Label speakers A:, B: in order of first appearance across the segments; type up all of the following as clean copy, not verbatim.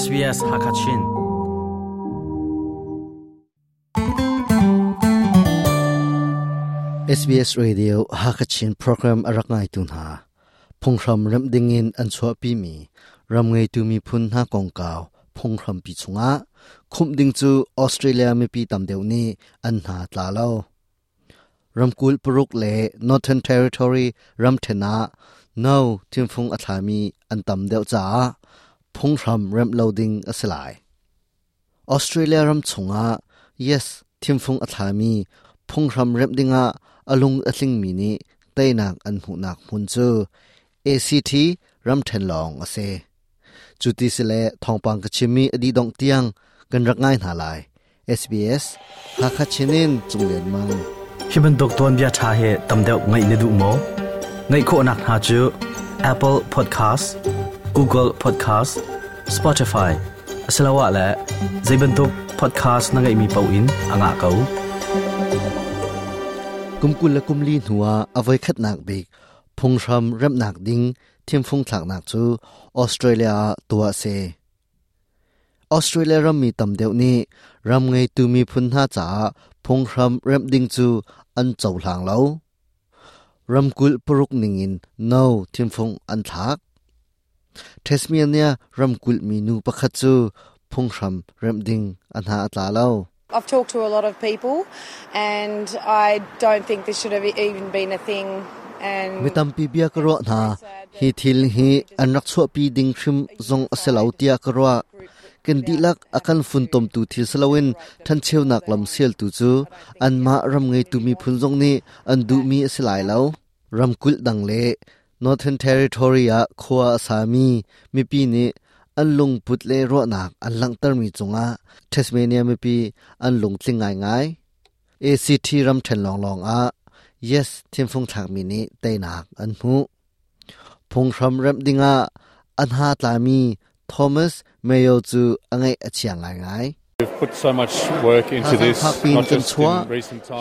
A: SBS Hakachin.
B: SBS Radio Hakachin program a rak ngaitu hna. Phunghram remh dingin an chuahpimi ram ngeitu miphun hna kongkau phunghrampi chungah khumh ding cu Australia mipi tam deuh nih an hna tla lo. Ramkulh paruk le Northern Territory ramṭhen ah no thimfung a thlami an tam deuh caah phunghram remh lo ding a si lai. Australia ram chungah Yes thimfung a thlami phunghram remh dingah a lung a tlingmi nih teinak an hmuhnak hmun cu ACT ramṭhen lawng a si. Cu ti si le thawngpang ka chimmi a dih dongh tiang kan rak ngai hna lai. SBS Hakha Chinin Cunglian Mang.
A: Hi bantuk tuanbia ṭha hi tam deuh ngaih na duh maw? Ngaih khawhnak hna cu Apple Podcast, Google Podcast, Spotify asiloah le zei bantuk podcast na ngeihmi paoh in a ngah ko.
B: Kum 20 le kum li hnuah a voikhatnak bik phunghram remhnak ding thimfung thlaknak cu Australia ah tuah a si. Australia rammi tam deuh nih ram ngeitu miphun hna caah phunghram remh ding cu an cohlang lo. Ramkulh paruk ningin no thimfung an thlak. Tasmania ramkulh minu pakhat cu phunghram remh ding a hna a tla lo.
C: I've talked to a lot of people and I don't think this should have even been a thing.
B: Mi tampi bia ka ruah hna. Hi thil hi an rak chuahpi ding hrim zong a si lo tiah ka ruah. Kan dihlak a kan funtomtu thil si loin ṭhancheunak lam sialtu cu anmah ram ngeitu miphun zong nih an duhmi a si lai lo. Ramkulh dang le Northern Territory ah khua a sami mipi nih an lungput le ruahnak an langhtermi cungah Tasmania mipi an lungtling ngaingai. ACT ramṭhen lawnglawng ah Yes thimfung thlakmi nih teinak an hmuh. Phunghram remh dingah a hna tlami Thomas Mayo cu a ngaih a chia ngaingai. Thazaang in kan chuah.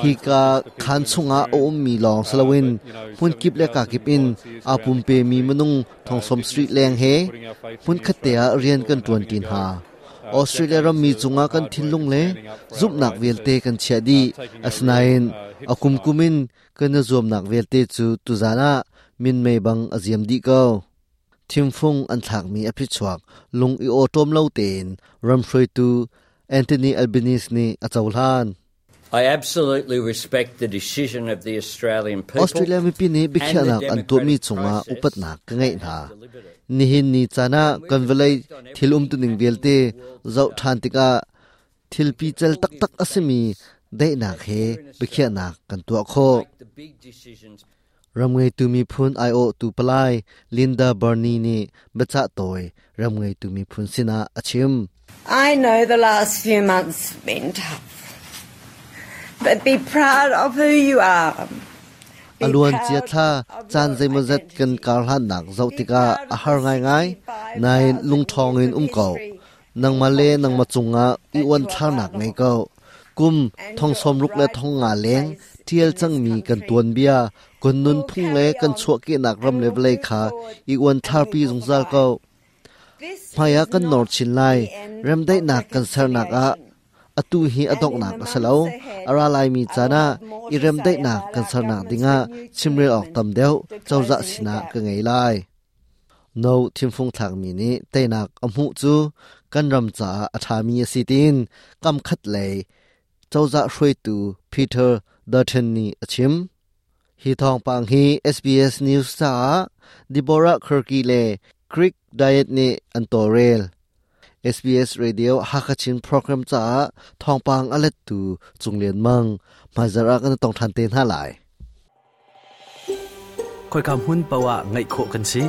B: Hika khaan chungah a ummi lawng si loin hmunkip le kakip in aa pumpemi minung thongsawm street leng he hmunkhat te ah rian kan ṭuanṭi hna. Australia rammi cungah kan thinlung le zumhnak vialte kan chiah dih. Asinain a kumkum in kan i zuamnak vialte cu tuzan ah minmei bang a ziam dih ko. Thimfung an thlakmi a phichuak lung i awṭawm lo tein ram hruaitu Anthony Albanese nih a cohlan.
D: I absolutely respect the decision of the Australian people.
B: Australia mipi nih biakhiahnak an tuahmi cungah upatnak ka ngeih hna. Nihin ni caan ah kan vawlei thil umtuning vialte zoh ṭhan tikah thil pical taktak a simi daihnak he biakhiahnak kan tuah khawh. Ram ngeitu miphun aiawhtu palai Linda Burney nih biacah tawi ram ngeitu miphun sinah a chim.
E: I know the last few months have been tough, but be proud of who you are.
B: A luan cia thla caan zeimawzat kan karhlannak zoh tikah a har ngaingai, nain lungṭhawng in um ko. Nangmah le nangmah cungah i uanthlarnak ngei ko. Kum thong sawmruk le thong nga leng ṭial cangmi kan tuanbia, kan nunphung le kan chuahkehnak ram le vawlei kha i uanthlarpi zungzal ko. Hmaiah kan nor chin lai. Remdaihnak kan sernak ah atu hi a donghnak a si lo. A ra laimi caan ah i remdaihnak kan sernak dingah chimrel awk tam deuh cozah sinah ka ngei lai. No thimfung thlakmi nih teinak a hmuh cu kan ram caah a ṭhami a si tiin kamkhat lei cozah hruaitu Peter Dutton nih a chim. Hi thawngpang hi SBS News caah Deborah Kirky le Greek Diet nih an tawlrel. SBS Radio Hakachin program caah thawngpang a lettu Cung Lian Mang hmaizarh ah kan tong ṭhan te hna lai.
A: Khoika hmun paoh ah ngaih khawh kan si.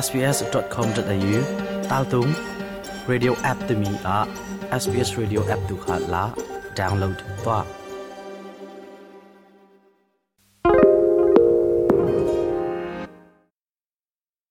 A: sbs.com.au taltung radio app timi ah SBS Radio app tu kha la download tuah.